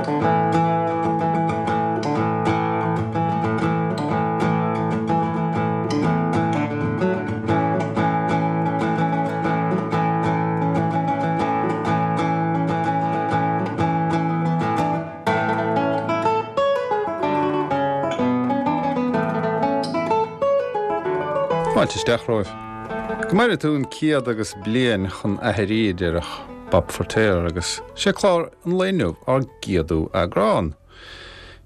Fáilte isteach romhaibh. Go maire tú an céad agus bliain chun aithrí, a déarfadh Bob Feirtéar, agus sé clár an lae inniu ár gcéadú eagrán.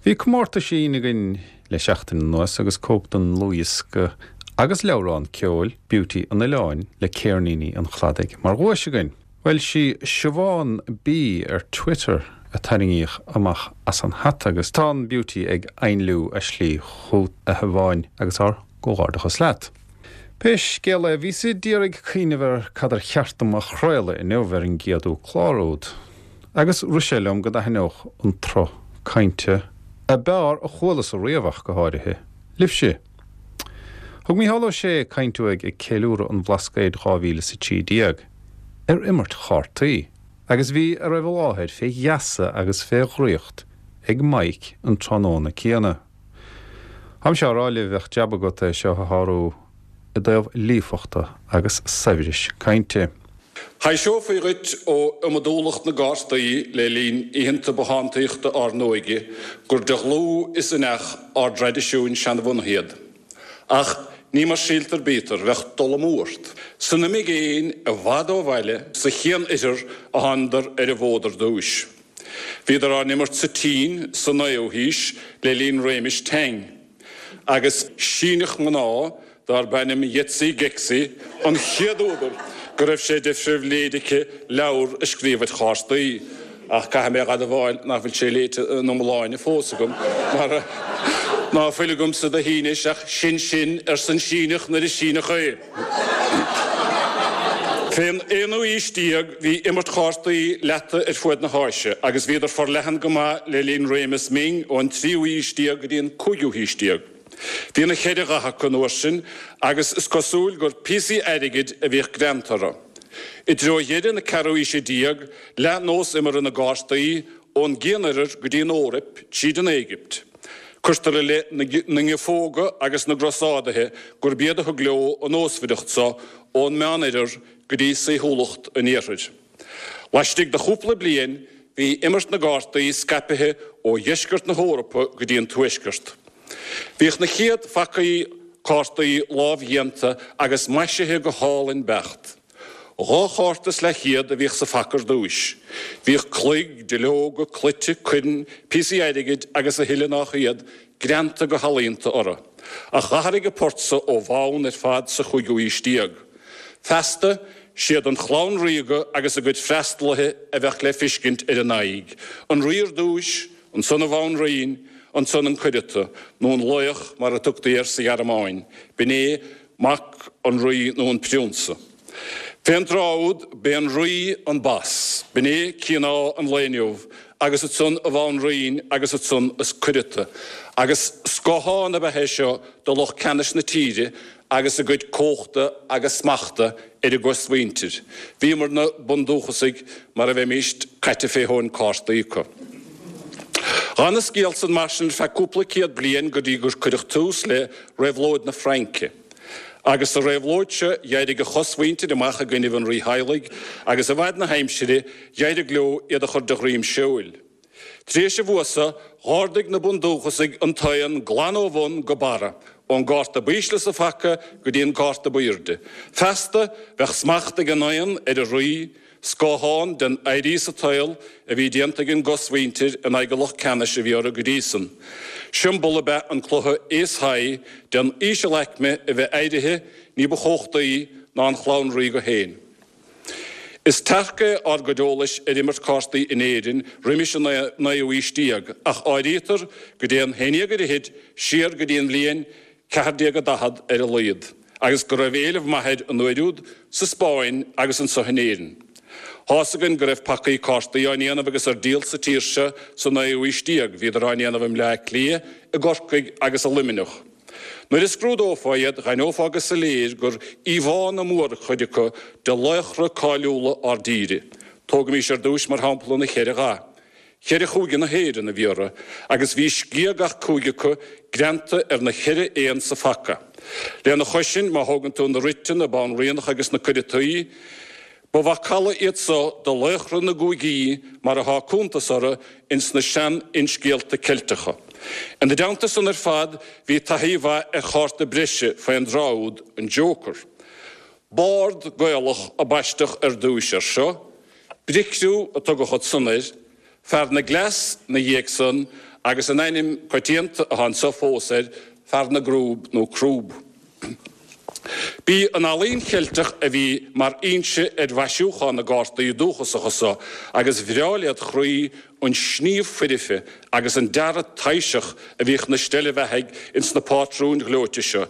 Bhí comórtaisín againn le seachtain anuas agus cóip den ndlúthdhiosca agus leabhrán ceoil, Beauty an Oileáin le Céirníní an Chladaigh mar dhuais againn. Bhuel, sí Siobhán B ar Twitter a tarraingíodh amach as an hata agus tá an Beauty ag ainliú a slí chugat, a Shiobháin, agus ár gcomhghairdeachas leat. Pé scéal é, bhíos a d'iarraidh cuimhneamh ar cad ar cheart dom a chraoladh inniu ar an gcéadú clár úd, agus rith sé liom go dtaitneodh an tsruth cainte, a b'fhearr a chualas-sa riamh ach go háirithe, libhse. Thug Mícheál Ó Sé caint uaidh ag ceiliúradh an Bhlascaoid 2013 ar imirt chártaí agus bhí a raibh i láthair fé gheasa agus fé dhraíocht ag Mike an tráthnóna céanna. Táimse á rá libh bheadh jab agat é seo a shárú i dtaobh líofachta agus saibhris cainte. Thaiseofaí dhuit ó iomadúlacht na gcártaí le linn oícheanta bothántaíochta ár n-óige gur de dhlúth is inneach ár dtraidisiúin seanbhunaithe iad. Ach ní mar síltear bítear, bheadh dul amú ort. San imigéin, i bhfad ó bhaile, sa Chian-Oirthear a thánadar ar an bhfód ar dtúis. Bhíodar á n-imirt sa tSín sa naoú haois le linn réimis Tang. Agus Síneach mná darb ainm Yetzi Gexi an chéad údar go raibh sé de phribhléid aici leabhar a scríobh ar chártaí, ach caithfidh mé a admháil nach bhfuil sé léite ina iomláine fós agam, mar ná fuil agamsa de Shínis ach sin sin, arsa an Síneach nuair is Síneach é. Fén aonú haois déag bhí imirt chártaí leata ar fuaid na hÁise agus bhíodar forleathan go maith le linn réimeas Ming ón tríú haois déag go dtí an cúigiú haois déag. Bhí na cheithre dhath acu an uair sin agus is cosúil gur píosaí airgid a bhíodh greanta orthu. I dtreo dheireadh na ceathrú haoise déag leath nós imeartha na gcártaí ón gCian-Oirthear go dtí an Eoraip tríd an Éigipt. Cuirtear i leith na nGiofóga agus na gCrosádaithe gurb iad a thug leo an nósmhaireacht so ón Meánoirthear go dtí saoithiúlacht an Iarthair. Laistigh de chúpla bliain bhí imirt na gcártaí scaipithe ó dheisceart na hEorpa go dtí an tuaisceart. Bhíodh na chéad phacaí cártaí lámhdhéanta agus maisithe go hálainn beacht. Dhá chárta is leathchéad a bhíodh sa phaca ar dtúis. Bhíodh cloig, duilleoga, cloite, coirn, píosaí airgid agus a thuilleadh nách iad, greanta go healaíonta orthu. Ach dh'athraigh an port so ó bhonn ar fad sa chúigiú haois déag. Feasta, siad an chlann ríoga agus a gcuid freastalaithe a bheadh le fiscint ar a n-aghaidh, an rí ar dtúis, ansan a bhanríon, ansan an cuireata, nó an laoch mar a tugtaí air sa Ghearmáin, b'in é mac an rí nó an priúnsa. Fén dtráth úd, b'é an rí an boss, b'in é Cinn Ádha an lae inniu, agus ansan a bhanríon agus ansan an cuireata. Agus scáthán ab ea é seo de lucht ceannais na tíre agus a gcuid cumhachta agus smachta ar a gcosmhuintir. Bhíomarna bundúchasaigh mar a bheimíst caite fé thóin cártaí acu. Dh'fhan an scéal san mar sin ar feadh cúpla céad bliain go dtí gur cuireadh tús le Réabhlóid na Fraince. Agus sa réabhlóid seo d'éirigh a chosmhuintir amach i gcoinnibh an rítheaghlaigh, agus i bhfad na haimsire d'éirigh leo iad a chur de dhroim seoil. Tar éis an bhua so, dh'ardaigh na bundúchasaigh an t-oigheann glan ó bhun go barra, ón gcárta b'ísle sa phaca go dtí an cárta b'aoirde. Feasta, bheadh smacht ag an oigheann ar an rí, Scáthán den éirí sa tsaol a bhí déanta ag an gcosmhuintir in aghaidh an lucht ceannais a bhí orthu go dtí san. Siombail ab ea an cluiche Ace High den ísealaicme a bheith éirithe ní ba chumhachtaí ná an chlann ríoga féin. Is tearc é ár gcuid eolais ar imirt cártaí in Éirinn roimis an naoú haois déag ach áirítear go dtéann haon déag ar fhichid siar go dtí an bhliain 1440 ar a laghad, agus go raibh éileamh maith air an uair úd sa Spáinn agus anso in Éirinn. Tá's againn go raibh pacaí cártaí á ndéanamh agus ar díol sa tír seo sa naoú haois déag, bhíodar á ndéanamh i mBleá Cliath, i gCorcaigh agus i Luimneach. Nuair a scrúdófá iad, dh'aithneofá go soiléir gur íomhánna mórchuid acu de laochra cáiliúla ár dtíre. Tógaimís ar dtúis mar shampla na ceithre dhath. Cheithre chúige na hÉireann a bhí orthu agus bhí sciath gach cúige acu greanta ar na cheithre éan sa phaca. Lena chois sin, má thógann tú na rite, na banríonacha agus na cuireataí, ba mhacalla iad so de laochra na gcúigí mar athá cuntas orthu ins na sean-fhinscéalta Ceilteacha. Ina dteannta san ar fad bhí taithí mhaith ar chárta breise fén dtráth úd, an Joker. Bord Gaelach a baisteadh ar dtúis air seo, Bricriú a tugadh ansan air, Fear na gCleas 'na dhiaidh san agus an ainm coitianta athá anso fós air, Fear na gCrúb nó Crúb. B'í an ealaín Cheilteach a bhí mar fhoinse ar mhaisiúchán na gcártaí dúchasacha so agus bhreá led chroí an sníomh foirfe agus an dearadh taibhseach a bhíodh 'na steillebheathaigh ins na pátrúin ghleoite seo,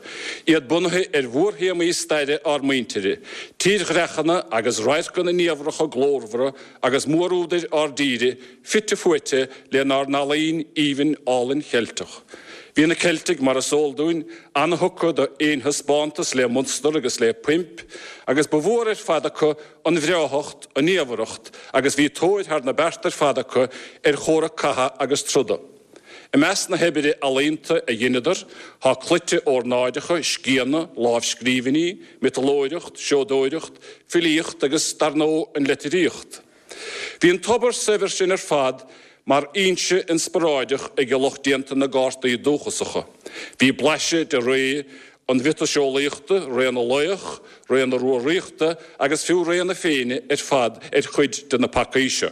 iad bunaithe ar mhórthéamaí staire ár muintire, tírdhreachanna agus radharcanna niamhracha glórmhara agus mórúdair ár dtíre fite fuaite lenár n-ealaín aoibhinn álainn Cheilteach. Bhí na Ceiltigh, mar is eol dúinn, ana-thugtha d'aonthaispeántas le munstar agus le poimp, agus ba mhór ar fad acu an bhreáthacht, an niamhracht, agus bhí tóir thar na bearta ar fad acu ar chomhrac catha agus troda. I measc na hoibre ealaíonta a dheineadar tá cloite órnáideacha, scianna, lámhscríbhinní, miotalóireacht, seodóireacht, filíocht agus, dar ndóigh, an litríocht. Bhí an tobar saibhir sin ar fad mar fhoinse inspioráideach ag lucht déanta na gcártaí dúchasacha. Bhí blaiseadh de ré an mhiotaseolaíochta, ré na laoch, ré na Rúraíochta agus fiú ré na Féinne ar fad ar chuid de na pacaí seo.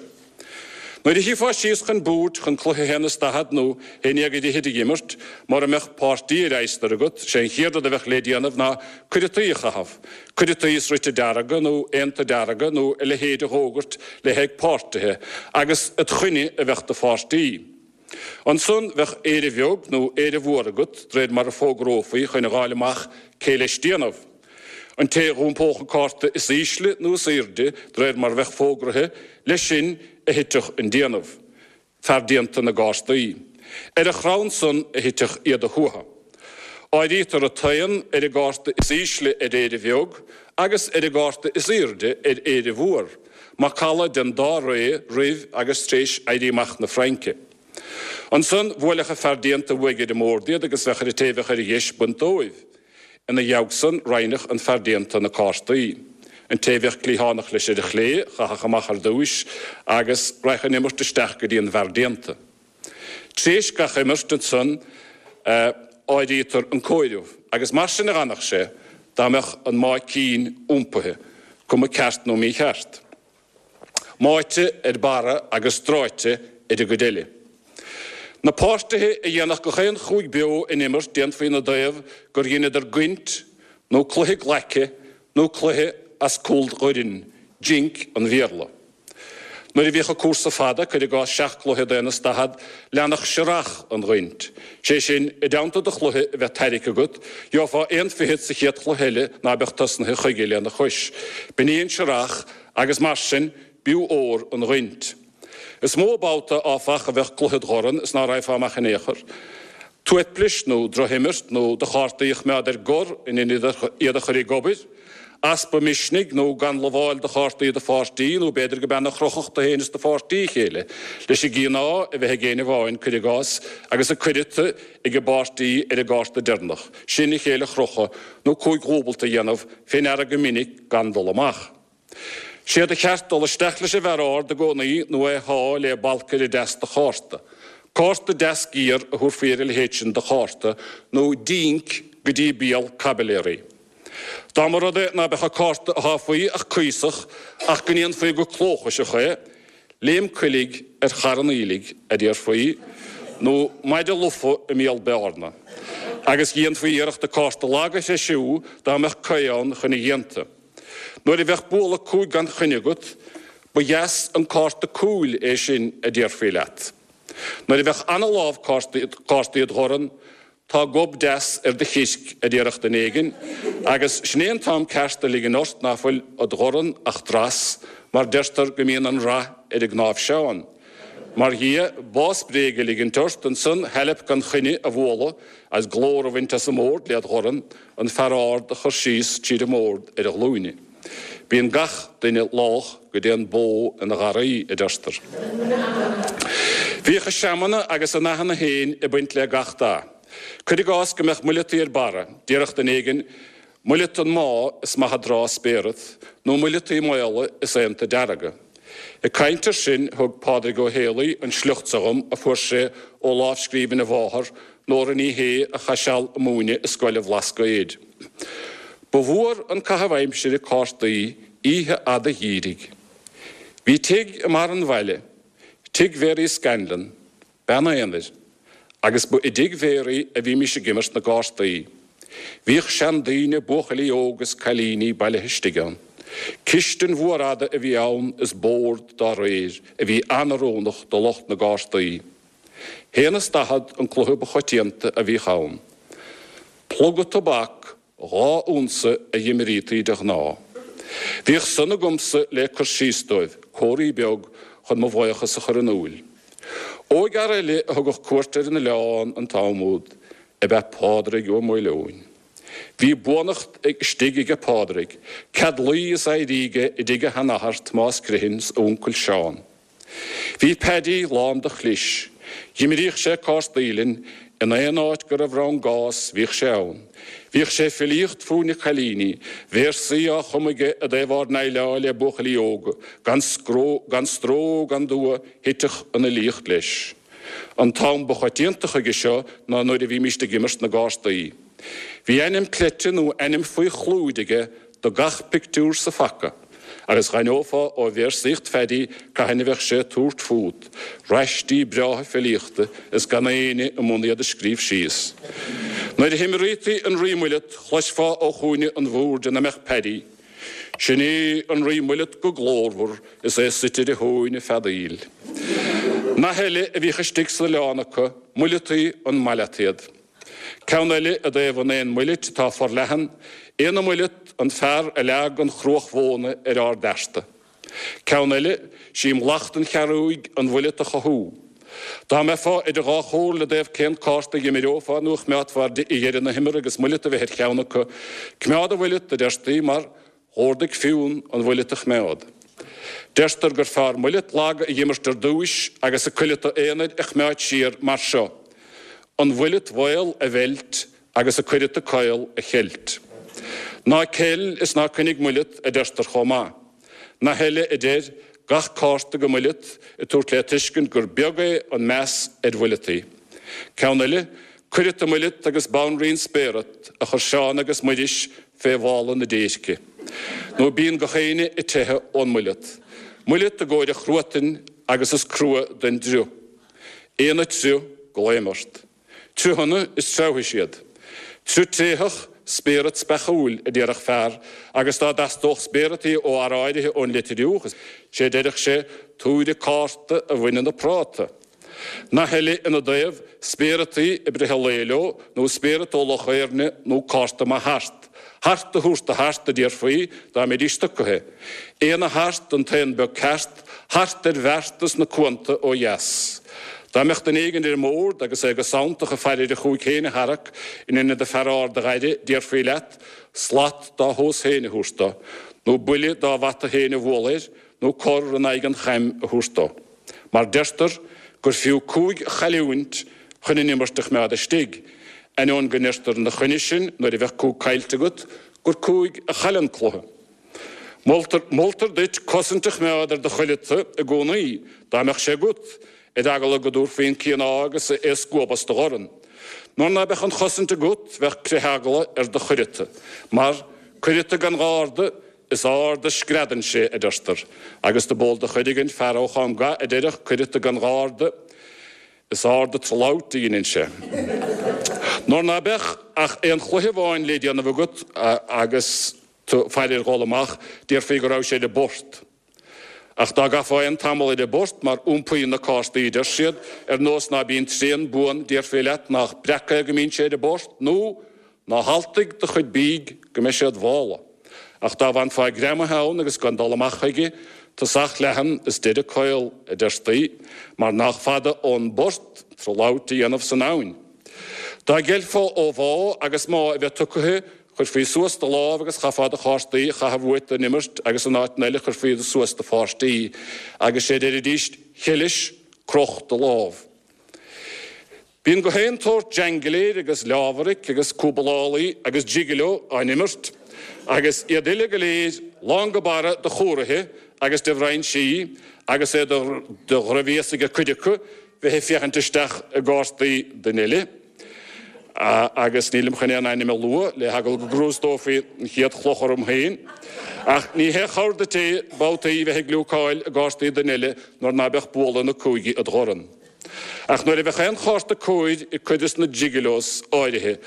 Nuair a shuífeá síos chun boird chun cluiche haon is daichead nó haon dhéag ar fhichid a dh'imirt, mura mbeadh páirtí ar adhastar agat, sé an chéad rud a bheadh le déanamh ná cuireataí a chaitheamh, cuireataí is rite dearga nó aonta dearga nó a leithéid a dh'fhógairt le haghaidh páirtithe, agus id choinne a bheadh do pháirtí. Ansan bheadh Éire Bheag nó Éire Mhór agat, d'réir mar a fógrófaí chun a dh'fháil amach cé leis déanamh. An té dh'iompódh an cárta is ísle nó is aoirde, d'réir mar bheadh fógraithe, leis sin a thitfeadh an déanamh. Fear déanta na gcártaí. Ar a chrann san a thitfeadh iad a shuaitheadh. Áirítear an t-aon ar an gcárta is ísle ar Éire Bheag agus ar an gcárta is aoirde ar Éire Mhór. Macalla den dá ré roimh agus tar éis Éirí Amach na Fraince. Ansan bhuailfeadh an fear déanta uaidh ar an mbord iad agus bheadh ar an té bheadh ar a dheis baint dóibh. Ina dhiaidh san roinnfeadh an fear déanta na cártaí. An té bheadh cliathánach leis ar a chlé chaithfeadh amach ar dtúis agus raghadh an imirt isteach go dtí an bhfear déanta. Tréis gach imirt ansan áirítear an comhaireamh agus mar sin a dh'fhanfadh sé dá mbeadh an máigh cinn iompaithe, cuma ceart nó mícheart. Máite ar barra agus dráite ar an gcuid eile. Na páirtithe a dhéanfadh gach aon chúig beo in imirt déanfaí ina dtaobh gur dheineadar goint nó cluiche glaice nó cluiche as cúl dhoirn, jink an Bhéarla. Nuair a bhíodh an cúrsa fada, cuir i gcás seacht gcluiche d'aon is daichead, leanfadh searrach an ghoint. Sé sin, i dteannta do chluiche a bheith tairgthe agat, gheofá aon fichead sa chéad chluiche eile ná beadh tosnaithe chuige lena chois. B'in í an searrach agus mar sin, b'fhiú ór an ghoint. Is mó babhta, áfach, a bheadh cluiche id dhorn is ná raghfá amach in aon chor. Tuaiplis nó drochimirt nó do chártaí a choimeád ar gor in ionad iad a chur ag obair, easpa misnigh nó gan lamháil do chártaí do pháirtí nó b'fhéidir go b'ean a chrochfadh tú féin is do pháirtí a chéile leis an gcian ádh a bheith ag éinne amháin, cuir i gcás, agus an cuireata ag an bpáirtí ar an gcárta deireanach sin a chéile a chrochadh nó cúig dhúbailt a dhéanamh fé ndeara go minic gan dul amach. Sé do cheart dul isteach leis an bhfear ard i gcónaí nó é a shá le balcaire deas de chárta. Cárta deas géar a thabharfaí ar a leithéid sin de chárta, nó dínc go dtí béal caibiléaraí. Dá mba rud é ná beadh an cárta a sháfaí ach cuíosach ach go ndéanfaí go clóchaiseach é, léim coiligh ar charn aoiligh, a déarfaí, nó maide lofa i mbéal bearna. Agus dhéanfaí iarracht an cárta lag a threisiú dá mbeadh caoi ann chun a dhéanta. Nuair a bheadh bualadh cúig gan choinne agat, ba dheas an cárta cúil é sin a déarfaí leat. Nuair a bheadh ana-lámh cártaí id dhorn, tá gob deas ar do chirc, a déarfadh duine éigin, agus sin é an t-am ceart a ligean ort ná fuil id dhorn ach dreas, mar deirtear go mbíonn an rath ar an gcnáimhseán. Mar dhia, bás bréige a ligint ort, ansan hailp gan choinne a bhualadh agus glór a bhaint as an mbord led dhorn, an fear ard a chur síos tríd an mbord ar a ghlúine. Bíonn gach duine lách go dtéann bó ina gharraí, a deirtear. Bhíodh a seamanna agus a nathanna féin ag baint le gach dath. Cuir i gcás go mbeadh muileataí ar barra, déarfadh duine éigin, Muileata an mbá is maith a dtráth spéarat, nó muileataí maola is aonta dearga. Ag caint air sin thug Pádraig Ó Héalaí an sliocht seo dhom a fuair sé ó lámhscríbhinn a mháthar, Nóra Ní Shé a chaith seal ag múineadh i scoil an Bhlascaoid. Ba mhór an caitheamh aimsire cártaí oíche fhada gheimhridh. Bhí tigh i mbarr an bhaile, tigh Mhary Scanlon, bean aonair, agus ba i dtigh Mhary a bhímis ag imirt na gcártaí. Bhíodh seandaoine, buachaillí óga is cailíní bailithe istigh ann. Cistin mhór fhada a bhí ann is bord dá réir, a bhí an-oiriúnach do lucht na gcártaí. Haon is 40 an cluiche ba choitianta a bhíodh ann. Pluga tobac 2 unsa a dh'imrítaí de ghnáth. Bhíodh san agamsa le cur síos dóibh, comharthaí beag chun mo bhaochas a chur in úil. Óigfhear eile a thugadh cuairt ar an oileán an t-am úd ab ea Pádraig Ó Maoileoin. Bhí buannacht istigh aige Pádraig, cead luí is éirí aige i dtigh a sheanathar Tomás Criomhthain 's a uncail Seán. Bhí Paddy lán de chlis. Dh'imríodh sé cártaí linn, in aon áit go raibh rann gás bhíodh sé ann. Bhíodh sé ag filíocht fúinne cailíní, véarsaí á chumadh aige i dtaobh ár ndéileáil le buachaillí óga, gan scró, gan stró gan dua thitfeadh an fhilíocht leis. An t-am ba choitianta chuige seo ná nuair a bhímíst ag imirt na gcártaí. Bhí ainm cleite nó ainm faoi chlúid aige do gach pictiúr sa phaca, agus dh'aithneofá ó véarsaíocht Phaddy cathain a bheadh sé ag tabhairt fút, raistí breátha filíochta is gan éinne i mbun iad a scríobh síos. Nuair a himrítaí an Rí Muileat chloisfeá ó chúinne an bhoird ina mbeadh Paddy, Sin é an Rí Muileat go glórmhar is é suite ar a thóin ag feadaíl. Nath eile a bhíodh istigh san oileán acu, Muileataí an maith leat iad. Ceann eile i dtaobh an éan muilit atá forleathan, Éan na muileat an fear a leag an chruach mhóna ar ár bhfearta. Ceann eile, Sí mallacht an chearúigh an mhuileat a chothú. Dá mbeifeá idir dhá chomhairle i dtaobh cén cárta a dh'imreofá nó a choimeádfá ar dheireadh na himeartha agus muileat a bheith ar cheann acu, coimeád an mhuileat, a deirtí, mar Dh'ordaigh Fionn an mhuileat a choimeád. Deirtear gur fearr muileat lag a dh'imirt ar dtúis agus an cuileata aonair a choimeád siar mar seo, an mhuileat mhaol a mheilt agus an cuileata caol a cheilt. Ná ceil is ná coinnigh muileat, a deirtear chomh maith. Nath eile a deir, gach cárta go muileat, ag tabhairt le tuiscint gur beag é an meas ar mhuileataí. Ceann eile, Cuireata muileat agus banríon spéarat a chuir Seán agus Muiris fé mhála na déirce. Nó bíonn gach éinne ag teitheadh ón muileat. Muileat i gcomhair an chruatain agus is crua don driuch. Éan ag triuth, glaoim ort. Triothanna is treabhfaidh siad. Triuth tréitheach, spéarat speachúil, a déarfadh fear, agus dá dteastódh spéarataí ó fhear áirithe ón Leitir Fhiuch, is é a déarfadh sé, tabhair an cárta a bhaineann an práta. Nath eile ina dtaobh, spéarataí ag breith an lae leo, nó spéarat ó Loch Éirne nó cárta maith thart. Thart a thabhairt do thart, a déarfaí, dá mbeidís stucaithe. Éan a thart, an t-éan beag ceart, thart ar bheartas na cuanta ó dheas. Dá mbeadh duine éigin ar an mbord agus é go santach ag faire ar a chúig féin a tharrac in ionad an fear ard a dh'aire, déarfaí leat, slat dá thomhas féin a thabhairt do, nó buille dá bhata féin a bhualadh air, nó cor in aghaidh an chaim a thabhairt dó. Mar deirtear gur fiú cúig a chailliúint chun an imirt a choimeád istigh, ainneoin go ndeirtear ina choinne sin nuair a bheadh cúig caillte agat gur cúig a chaill an cluiche. Moltar, moltar duit cosaint a choimeád ar do chuileata i gcónaí, dá mbeadh sé agat, ar eagla go dtabharfaí an cian agus é a scuabadh as do dhorn. Nuair ná beadh an chosaint agat bheadh critheagla ar do chuileata, mar, cuileata gan gharda, Is ard a screadann sé, a deirtear, agus do b'eol do Chuireagain, fear ó Chom Ga, a déarfadh, Cuileata gan gharda, is ard an tralabht a dheineann sé. Nuair ná beadh ach aon chluiche amháin le déanamh agat agus tú faire ar dhul amach, déarfaí go raibh sé ar an bport. Ach dá gcaithfeá aon tamall ar an bport, mar iompaíonn na cártaí, a deir siad, ar nós ná bíonn trian buan, déarfaí leat nách breac é go mbíonn sé ar an bport, nó Ná haltaigh do chuid bídh go mbeidh sé id mhála. Ach dá bhfanfá greamaithe ann agus gan dul amach chuige, tosach leathan is deireadh caol, a deirtí, mar nách fada ón bport tralabht a dhéanamh san abhainn. Dá gceilfeá ó bhá agus má a bheith tugtha. Chuirfí suas do lámh agus chaithfeá do chártaí a chaitheamh uait don imirt agus in áiteanna eile chuirfí iad suas do pháirtí agus sé deiridís 'Cheilis, croch do lámh. Bíonn gach aon tsórt jangléir agus leámharaic agus cúbalálaí agus gigolo á n-imirt agus iad uile go léir lán go barra de chuaraithe agus de bhrainsí agus é de dhroichbhéas ag cuid acu bheith ag féachaint isteach i gcártaí duine eile. Agus nílim chun aon ainm a lua le heagla go gcrústófaí an chéad chloch orm féin. Ach ní haon chabhair duit é babhtaí bheith ag gliúcáil i gcártaí duine eile nuair ná beadh bualadh na cúige id dhorn. Ach nuair a bheadh aon chárta cóir ag cuid des na gigolos áirithe,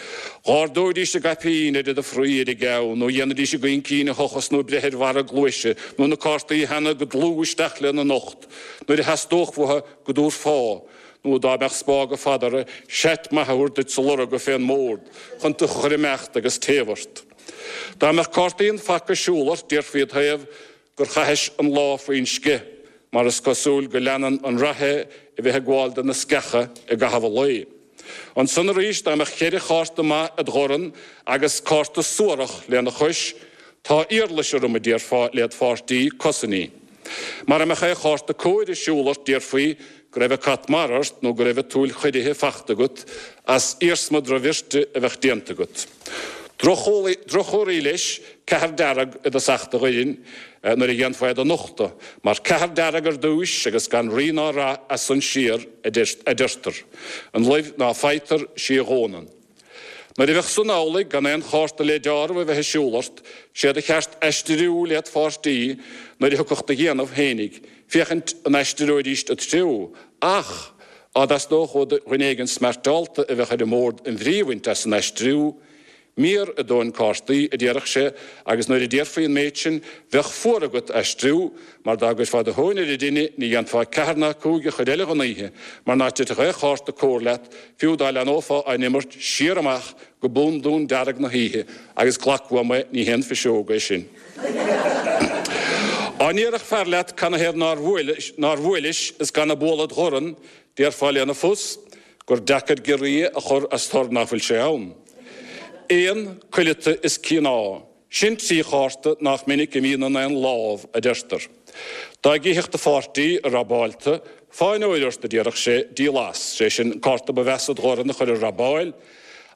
dh'ardóidís a gcaipín ar iad a fraoigh ar a gceann, nó dhéanfaidís a gcoincín a thochas nó breith ar bharra a gcluaise, nó na cártaí a theannadh go dlúth isteach lena n-ucht, nuair a theastódh uathu go dtabharfá, nó dá mbeadh spága fada orthu, seat maith a thabhairt duit sa lorga fén mbord, chun tú a chur imeacht agus téamh ort. Dá mbeadh cártaí an phaca ag siúl ort, déarfaí id thaobh gur chaithis an lá faoin sceith, mar is cosúil go leanann an rath é a bheith ag gabháil de na sceacha i gcaitheamh an lae. Ansan arís, dá mbeadh cheithre chárta maith id dhorn agus cárta suarach lena chois, tá iarlais orm, a déarfá led pháirtí, cosain í. Mara mbeadh aon chárta cóir ag siúl ort déarfaí go raibh an cat mara ort nó go raibh an tsúil choirithe fachta agat as iarsma drochbhirte a bheadh déanta agat. Droch-chomhartha leis ceathar dearg i dtosach do dhoirn nuair a dhéanfá iad a nochtadh, mar ceathar dearg ar dtúis agus gan rí ná rath as san siar, a deirtear. An luibh ná faightear, sí a dhónann. Nuair a bheadh san amhlaidh, gan aon chárta le deáramh a bheith ag siúl ort, sé do cheart aistriú led pháirtí nuair a thiocfadh do dhéanamh fhéinig, féachaint an aistreoidíst id threo, ach, á dteastódh ó dhuine éigin smeairteálta a bheadh ar an mbord an bhrí a bhaint as an aistriú, Miar i dtóin cártaí, a déarfadh sé, agus nuair a déarfaí an méid sin, bheadh fuar agat aistriú, mar dá gcuirfeá do thóin ar an dtine, ní dhéanfá ceathair ná cúig a chuid eile dhon oíche, mar ná titfeadh aon chárta cóir leat, fiú dá leathnófá á n-imirt siar amach go bundún dearg na hoíche, agus glac uaim é, ní haon phiseog é sin. Á ndéarfadh fear leat canathaobh nár nár bhuailis is gan a bualadh id dhorn, déarfá lena phus, gur deacair giorria a chur as tor ná fuil sé ann. Éan, cuileata is cíoná, sin trí chárta nách minic a bhíonn in aon lámh, a deirtear. Dá gcífeadh do pháirtí i robáilta, fáinneoir ort, a déarfadh sé, díol as, sé sin, an cárta ba mheasa id dhorn a chur ar robáil,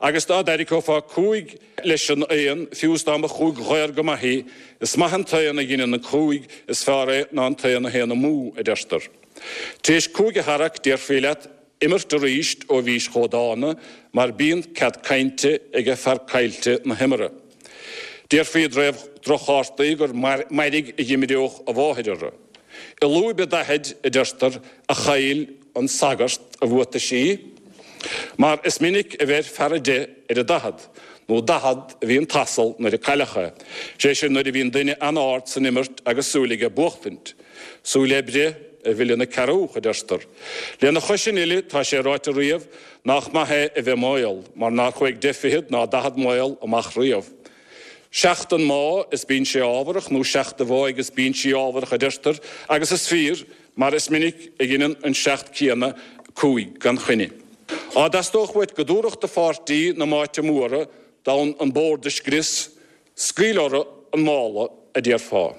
agus dá dtarraiceofá cúig leis an aon, fiú is dá mba chúig dhaor go maith í, is maith an t-aon a dheineann an cúig, is fearr é ná an t-aon a théann amú, a deirtear. Tar éis cúig a tharrac, déarfaí leat, imirt arís ó bhís chomh dána mar bíonn cead cainte aige fear caillte na himeartha. Déarfaí i dtaobh droch-chártaí gur mairg a dh'imreodh a mháthair orthu. I lúib an daichid, a deirtear, a chaill an sagart a bhuataisí, mar is minic a bheir fear 10 ar an daichead, nó 40 a bhí an t-asal nuair a cailleadh é, sé sin nuair a bhíonn duine an-ard san imirt agus súil aige buachtaint. Súil oibre a mhilleann an cearúch, a deirtear. Lena chois sin uile, tá sé ráite riamh nách maith é a bheith maol, mar nár chuaigh deich fichead ná daichead maol amach riamh. Seacht an má is bíonn sé ámharach, nó seacht a bháidh is bíonn sí ámharach, a deirtear, agus is fíor, mar is minic a dheineann an seacht céanna cúig gan choinne. Á dteastódh uait go dtabharfadh do pháirtí na máite móra d'fhonn an bord a scrios, Scaoil orthu an mála, a déarfá.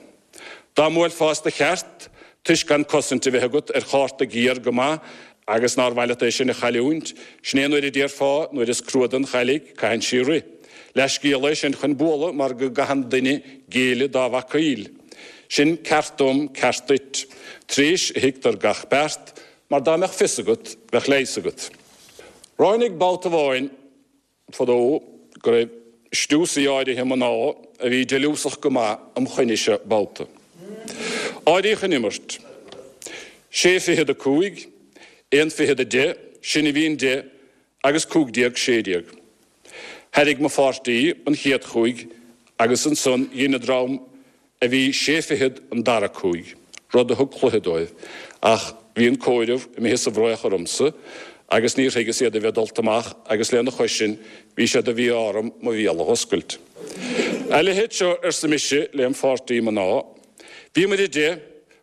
Dá mbuailfeá as do cheart, toisc gan cosaint a bheith agat ar chárta géar go maith agus nár mhaith leat é sin a chailliúint, sin é nuair a déarfá, nuair is crua don chailligh, caitheann sí rith. Leathscéal é sin chun bualadh mar go gcaitheann duine géilleadh dá bhacaíl. Sin ceart dom, ceart duit. Tar éis a thuigtear gach beart, mar dá mbeadh fios agat, bheadh leigheas agat. Ráinig babhta amháin. fadó go raibh stiúsaí áirithe mná a bhí deiliúsach go maith um choinne seo babhta. Áiríodh an imirt. Sé fichead a cúig, aon fichead a deich, sin a bhí an deich agus 15 16. Thairrig mo pháirtí an chéad chúig agus ansan dhein an dream a bhí sé fichead an dara cúig, rud a thug cluiche dóibh, ach bhí an comhaireamh imithe sa bhfraoch ormsa agus níor thuigeas iad a bheith dulta amach agus lena chois sin bhí sé de mhí-ádh orm mo bhéal a dh'oscailt. A leithéid seo, arsa mise lem pháirtí mná, bhíomair a deich,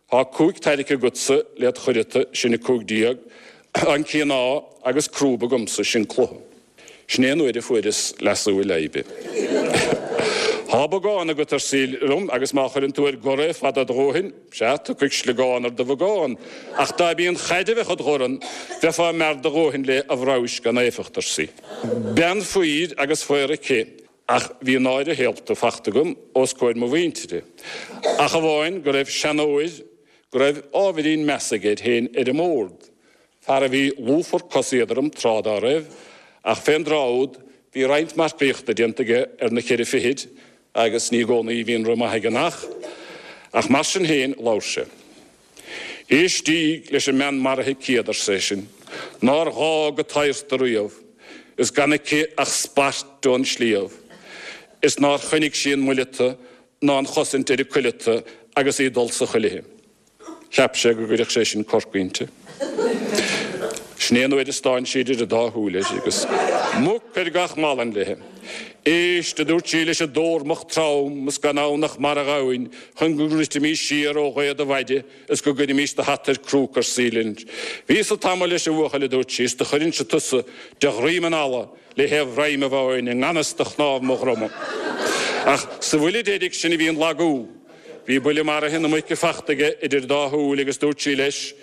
thá cúig tairrigthe agatsa led chuileata, sin 15, an cíoná agus crúb agamsa, sin cluiche. Sin é an uair a fuaireas leasú i leidhbe. Thá bogán agat, ar sí liom, agus má chuireann tú ar gor é fada a dhóthain, sea, tiocfaidh sliogán ar do bhogán. Ach dá b'í an chaid a bheadh id dhorn, bheifeá mear do dhóthain léi a bhramhais gan éifeacht, ar sí. Bean faoir agus faor aici, ach bhí náire shaolta fachta agam os comhair mo mhuintire, ach amháin go raibh seanóir go raibh ábhairín measa aige air féin ar an mbord, Fear a bhí lúfar cos-éadrom tráth dá raibh, ach fén dtráth úd bhí roinnt marcaíochta déanta aige ar na cheithre fichid agus ní i gcónaí a bhíonn rith maith ag an each, ach mar sin féin labhair sé. Éistíg leis an mbean maraithe céad, ar seisean, nár ghá go t-adharta riamh, is gan aici ach spairt ón sliabh, is nár choinnigh sí an muileata ná an chosaint ar a cuileata agus í ag dul sa chuilithe. Cheap sé go gcuirfeadh sé sin corc inti. Sin é an uair a stán sí idir an dá shúil air agus muc ar gach malann léi. Éist, a dúirt sí leis an dtórmach trom is gan ann ach mara ghamhain chun go ndruidfimís siar ó ghaoth do mhaide is go gcuirfimís do hata ar cróc ar sí. Bhíos-sa tamall leis an bhuachaill, a dúirt sí, is do chuirinnse tusa de dhroim an fhalla le thaobh dhroim a bháin i ngan fhios do chnámh mo dhroma. Ach sa bhuille deiridh sin a bhí an lagú. Bhí buille maraithe na muice fachta aige idir an dá shúil agus dúirt sí leis,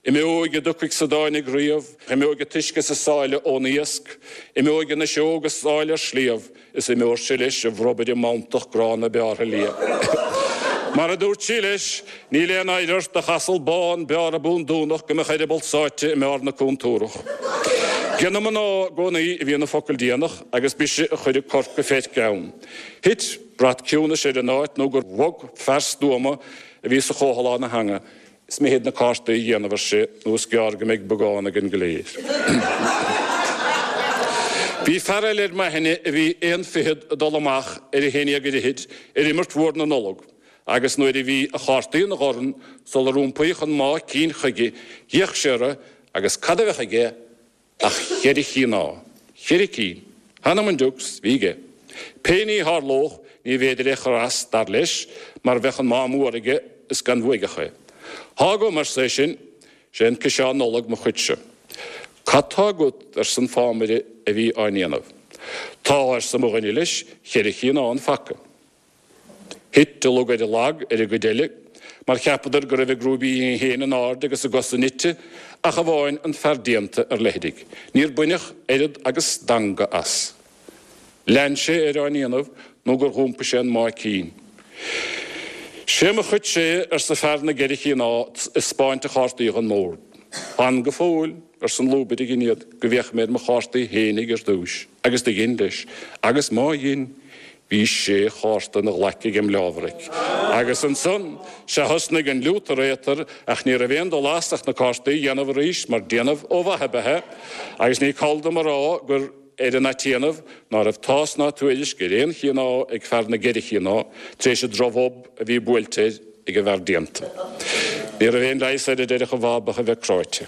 Imeoidh a dtiocfaidh 's a dtáinig riamh, imeoidh an t-uisce is an sáile ón iasc, imeoidh an fhuiseog is áil ar sliabh, is imeoidh-se leis a bhrobaire mantach gránna beártha liath. Mar a dúirt sí leis, níl aon oidhre ort ach asal bán beártha búndúnach go mbeadh eireaball sáite i mbarr na cúntúrach. 'Ge na mná i gcónaí a bhíonn an focal déanach agus b'ise a chuireadh corc go feirc ann. Thit brat ciúnais ar an áit nó gur bhog fear stuama a bhí sa chomhthalán a theanga, Is mithid na cártaí a dhéanamh, ar sé, nó is gearr go mbeidh bogán againn go léir. Bhí fear eile ar m'aithne a bhí aon fichead ag dul amach ar a haon dhéag ar fhichid ar imirt mhór na Nollag agus nuair a bhí a chártaí ina dhorn sular iompaíodh an máigh cinn chuige d'fhéach sé orthu agus cad a bheadh aige Ach cheithre chinn á. Cheithre cinn. Th'anam 'on dtiucs, bhí aige. Pé ní tharlódh, ní bhféidir é chur as, dar leis, mar bheadh an máth mór aige is gan bhuaidheach é. Thá agam, arsa é sin, sé an ciseán Nollag mo chuidse. Cad tá agat, arsa an fámaire a bhí á ndéanamh. Tá, arsa mo dhuine leis, cheithre chinn á an phaca. Thit a lug ar a lag ar an gcuid eile, mar cheapadar go raibh a gcrúibíní féin in airde agus a gcosa nite, ach amháin an fear déanta ar leithrigh. Níor baineadh oiread agus danga as. Lean sé air á ndéanamh nó gur dh'iompaigh sé an máigh cinn. Sé mo chuidse é, arsa fear na gceithre chinn á, ag 'spáint a chártaí dhon mbord. Fan go fóill, arsa an lúbaire a dhein iad, go bhféachfaidh mé ar mo chártaí fhéinig ar dtúis. Agus do dhein leis. Agus má dhein, Bhí sé chárta ina ghlaic ag an mbleábhraic. Agus ansan, sea thosnaigh an liútar éatar ach ní raibh aon dul as ach na cártaí a dhéanamh arís mar déanamh ó mhaith ab ea é agus ní call dom a rá gur ar an atéanamh ná raibh tásc ná tuairisc ar aon chinn á ag fear na gceithre chinn á tar éis an drochbhob a bhí buailte air ag an bhfear déanta. Ní raibh aon leigheas air a déarfadh a bhab ach a bheith cráite.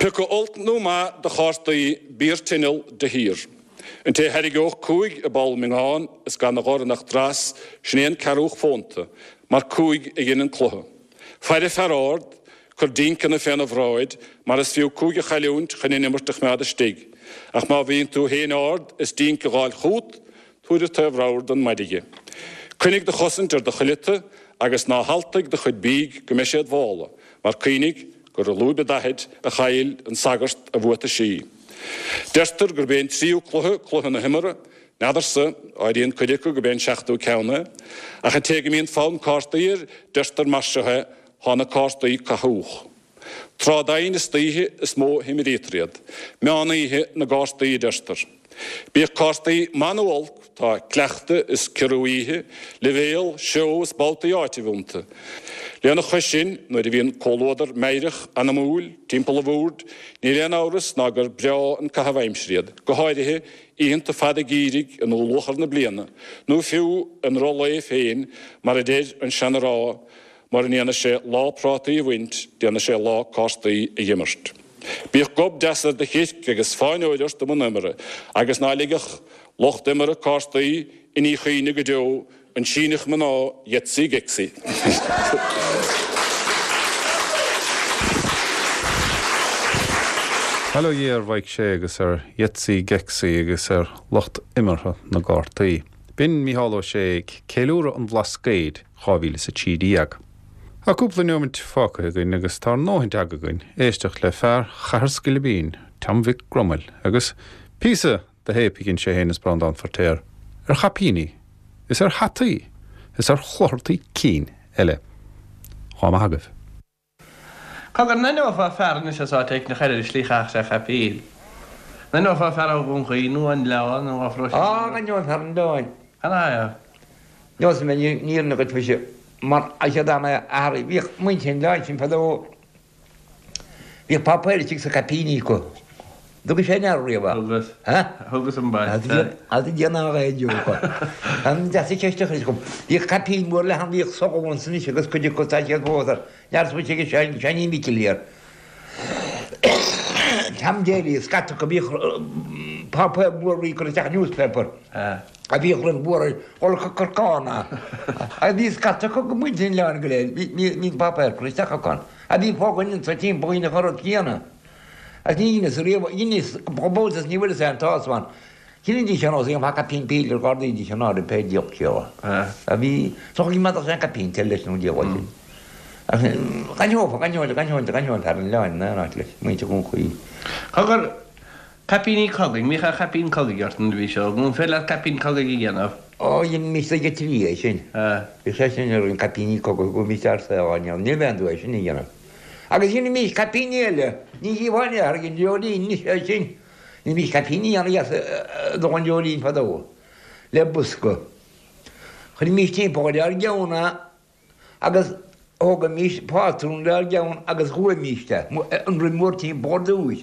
Pioca olc nó maith de chártaí bí ar tinneall de shíor. An té a thairgeodh cúig i bpoll miongáin is gan 'na dhorn ach dreas, sin é an ceathrúch fónta, mar cúig a dhein an cluiche. Faire fear ard, cuir dínceanna féna bhráid, mar is fiú cúig a chailliúint chun an imirt a choimeád istigh. Ach má bhíonn tú féin ard is dínc a dh'fháil chút, tabhair an taobh ramhar don maide dhe. Coinnigh do chosaint ar do chuileata agus ná haltaigh do chuid bídh go mbeidh sé id mhála, mar cuimhnigh gur i lúib an daichid a chaill an sagart a bhuataisí. Deirtear gurb é an tríú cluiche cluiche na himeartha, n'fheadarsa, áiríonn cuid acu gurb é an seachtú ceann é. Ach an té go mbíonn fonn cártaí air, deirtear mar seo é, thá na cártaí cathúch. Tráth doimhin istoíche is mó a himrítear iad. Meán oíche na gcártaí a deirtear. Bíodh cártaí maith nó olc, tá cleachtadh is ciorrú oíche, leibhéal, seó is babhtaí áitimh iontu. Lena chois sin, nuair a bhíonn comhluadar meidhreach anamúil timpeall an bhoird, níl aon amhras ná gur breá an caitheamh aimsire iad, go háirithe oícheanta fada geimhridh i ndúluachar na bliana, nó fiú i ndruth lae féin, mar a deir an seana-rá, Mura ndéana sé lá prátaí a bhaint, déana sé lá cártaí a dh'imirt. Bíodh gob deas ar do chirc agus fáinneoir ort i mbun imeartha, agus ná ligeadh lucht imeartha cártaí i ndíchuimhne go deo an Síneach mná Yetsi Gexi. Bail ó Dhia ar Mhaidhc Sé agus ar Yetsi Gexi agus ar lucht imeartha na gcártaí. B'in Mícheál Ó Sé ag ceiliúradh an Bhlascaoid 2013. Tá cúpla neomait fágtha againn agus tá ár ndóthain teanga againn éisteacht le fear Chathair Scoilbín, Tom Mhic Gromaill, agus píosa de théip a dhein sé féin is Breandán Feirtéar ar chaipíní is ar hataí is ar chluthartaí cinn eile. Dhá maith agaibh. Cogar, an aithneofá fear anois as áit éicint a chur ar an slí a chaithfeadh sé caipín? An aithneofá fear ó Dhún Chaoin nó ón Oileán nó ó Phróiseas? Á, aithneoinn fear an Oileáin. Cad é air? Neosfaidh mé an fhírinne dhuit mhuise, mar is é dá mbeadh athair, bhíodh muintir an Oileáin sin fadó, Bhíodh páipéir istigh sa caipíní acu. Dtugais fé ndeara riamh é? Thugas. Ha? Thugas ambaiste. As a déanamh a ghaeilge. An deas an cheist a chuir chugam. Bhíodh caipín mór leathan, bhíodh sogha ansan anois agus cuid acu tá siad fós ar neart smaointe ag Seáinín Mhicil thiar. Tom Daly, scata acu, bhíodh páipéar mór bhí curtha isteach newspaper. A bhíodh roimh mhór ar dhul go Corcán agus bhí scata acu go muintir an oileáin go léir, bhí an páipéar curtha isteach acu ann. A bhí fá dhuine anso timpeall dheineadh an rud céanna. Agus ní dheineas riamh, dheineas go bhfuil is ní bhfuil fhios aon tsásamh ann. Chinnidís ar nós aon caipín píle ar ghardaídís an áireamh pé diabhal céard. A bhí, is dócha go mbeadh sé an caipín te leis nó an diabhal sin. Ach d'aithneofá, d'aithneoinn, d'aithneoinn, d'aithneoinn fear an oileáin in aon áit leis, muintir Dhún Chaoin. Cogar, Caipíní cogaidh, an mbíodh aon chaipín cogaidh ort nuair a bhís óg, nó an féidir leat caipín cogaidh a dhéanamh? Ó, dheinimís ag an trí é sin. Bhí sé sin ar an caipíní cogaidh go mbíodh ár saol á ndéanamh, níl aon dua é sin a dhéanamh. Agus dheinimís caipíní eile, ní dhíobháil in aon chor ag an dreoilín anois é sin. Dheinimís caipíní ana-dheas don dreoilín fadó, le bosca. Chuirimís timpeall ar ár gceann é agus thógaimís pátrún lenár gceann agus ghuaimís é, an roim mhór timpeall ar dtúis,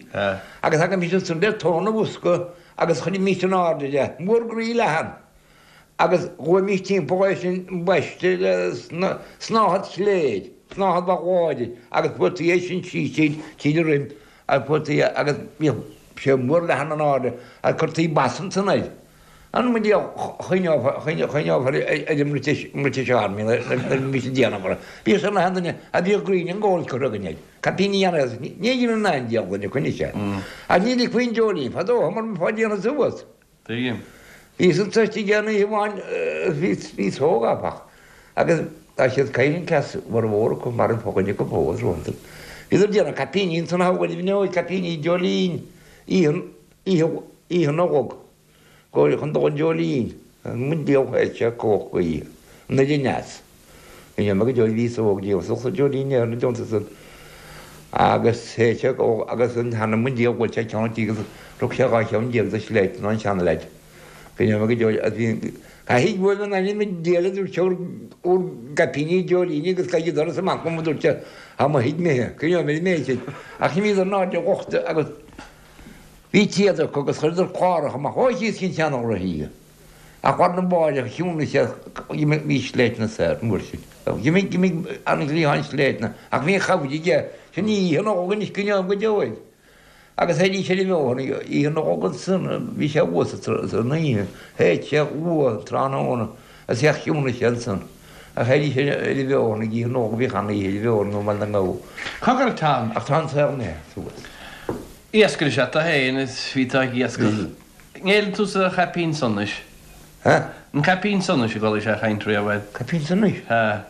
agus thagaimís ansan le tóin an bhosca agus chuirimís in airde é, mór groí leathan, agus ghuaimís timpeall é sin ambaiste le snáthaid chléir, snáthaid mhaith láidir, agus fuairtí é sin síos tríd, tríd an roim, agus fuairtí é, agus bhíodh sé mór leathan in airde, agus cuirtí bas ansan air. An mbeidh choinneofar ar an mBritish Army nuair a bhí siad déanamh orthu. Bhíodh sé na duine a bhíodh greene and gold curtha againn air. Caipíní an ní dhéanann aon diabhal duine coinne sé. Ach ní ligfí an dreoilín fadó mar bheifeá ag déanamh suas. Tuigim. Bhíos anso istigh aon oíche amháin bhíos óg áfach agus tá siad caoin an cleas mhór acu mar an fo-dhuine acu fós rompu. Bhíodar ag déanamh caipíní ansan a thógáil i bhfeoil caipíní dreoilín oíche oíche Nollag. Go chun dul an dreoilín, an diabhal théid sé cumhacht gaoithe, an oiread aneas. Bhí mé go deo bhíos óg diabhal sa dreoilín ar na deontais san agus théid sé go agus an t-anam an diabhal bhuail sé ceann an tí agus rug sé 12 cheann de shléibhte an seanleaid. Bhí mé go deo agus bhí caithfidh go bhfuil an ainm an diabhal a dúirt sé bhur bhur gcaipíní dreoilíní agus caithfidh doras amach dom a dúirt sé tá mo thigh imithe, coinneoidh mé an méid sin. Ach bhíodar in airde lochta agus Bhí téad acu agus chuireadar cláracha amach ó thíos cinn seanghraithí. Ach lá arna mháireach chiúnaigh sé d'imigh sléibhte soir an uair sin. D'imigh d'imigh an ghrian sléibhte ach bhí an chabhair aige. Sin í oíche Nollag anois go ndéanfaidh go deo air. Agus théidís ar an bhóthar oíche Nollag ansan bhí sé thuas san oíche. Théid sé luath an tráthnóna agus theach chiúnaigh sé ansan. Ach théidís ar an bhóthar ag oíche Nollag bhíodh an-oíche ar an bhóthar nó mar na ngabhadh. Cogar Tom. Ach tá an saol imithe suas. Iascaire is ea tú féin is bhí tú ag iascach. An ngéilleann tú sa chaipín sonais? Ha? An caipín sonais a gcualaís á chaint riamh air? Caipín sonais? Ha.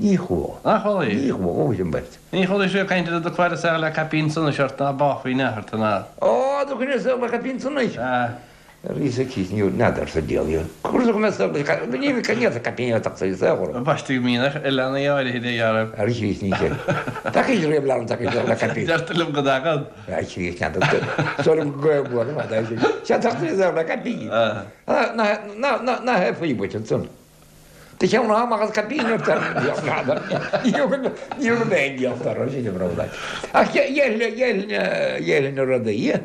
Ní chuala. Nach chualaís? Ní chuala, ó sin beirt. Ní chualaís riamh caint ar do chlár saol le caipín sonais ort ná báfaí in athar tú ná. Ó, do choinne saol le caipín sonais? Ha. Arís aici, ní n'fheadar sa diabhal. Cúrsa go mbeadh saol leis, ní bheadh ceann sa caipín atá sa saol orm. Ambaiste go mbíonn ar leanaí áirithe de dhealramh. Ar Chríost ní sin. Tacaíonn riamh leanbh tacaíonn saol le caipín. Deirtear liom go dtagann. Ar Chríost n'fheadar. Sórt gaol mór ar fad é sin. Sea tacaíonn saol le caipín. Ná hé faoi dhuit ansan. Do cheann amach as caipín ort ar an diabhal n'fheadar. Ní thug mé aon diabhal orthu sin a bhród. Ach dhéarfainn na rudaí.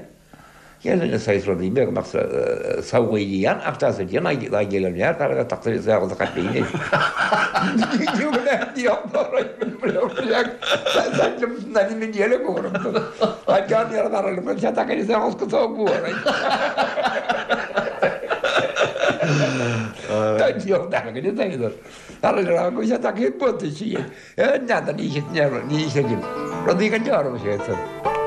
Dhéanfainn na saghas rudaí beaga nach samhlaoidí ann ach tá sa déanamh dá gcéile neart thar a bheith tagtha sa saol caipín é. Rudaí go dearbh sé san.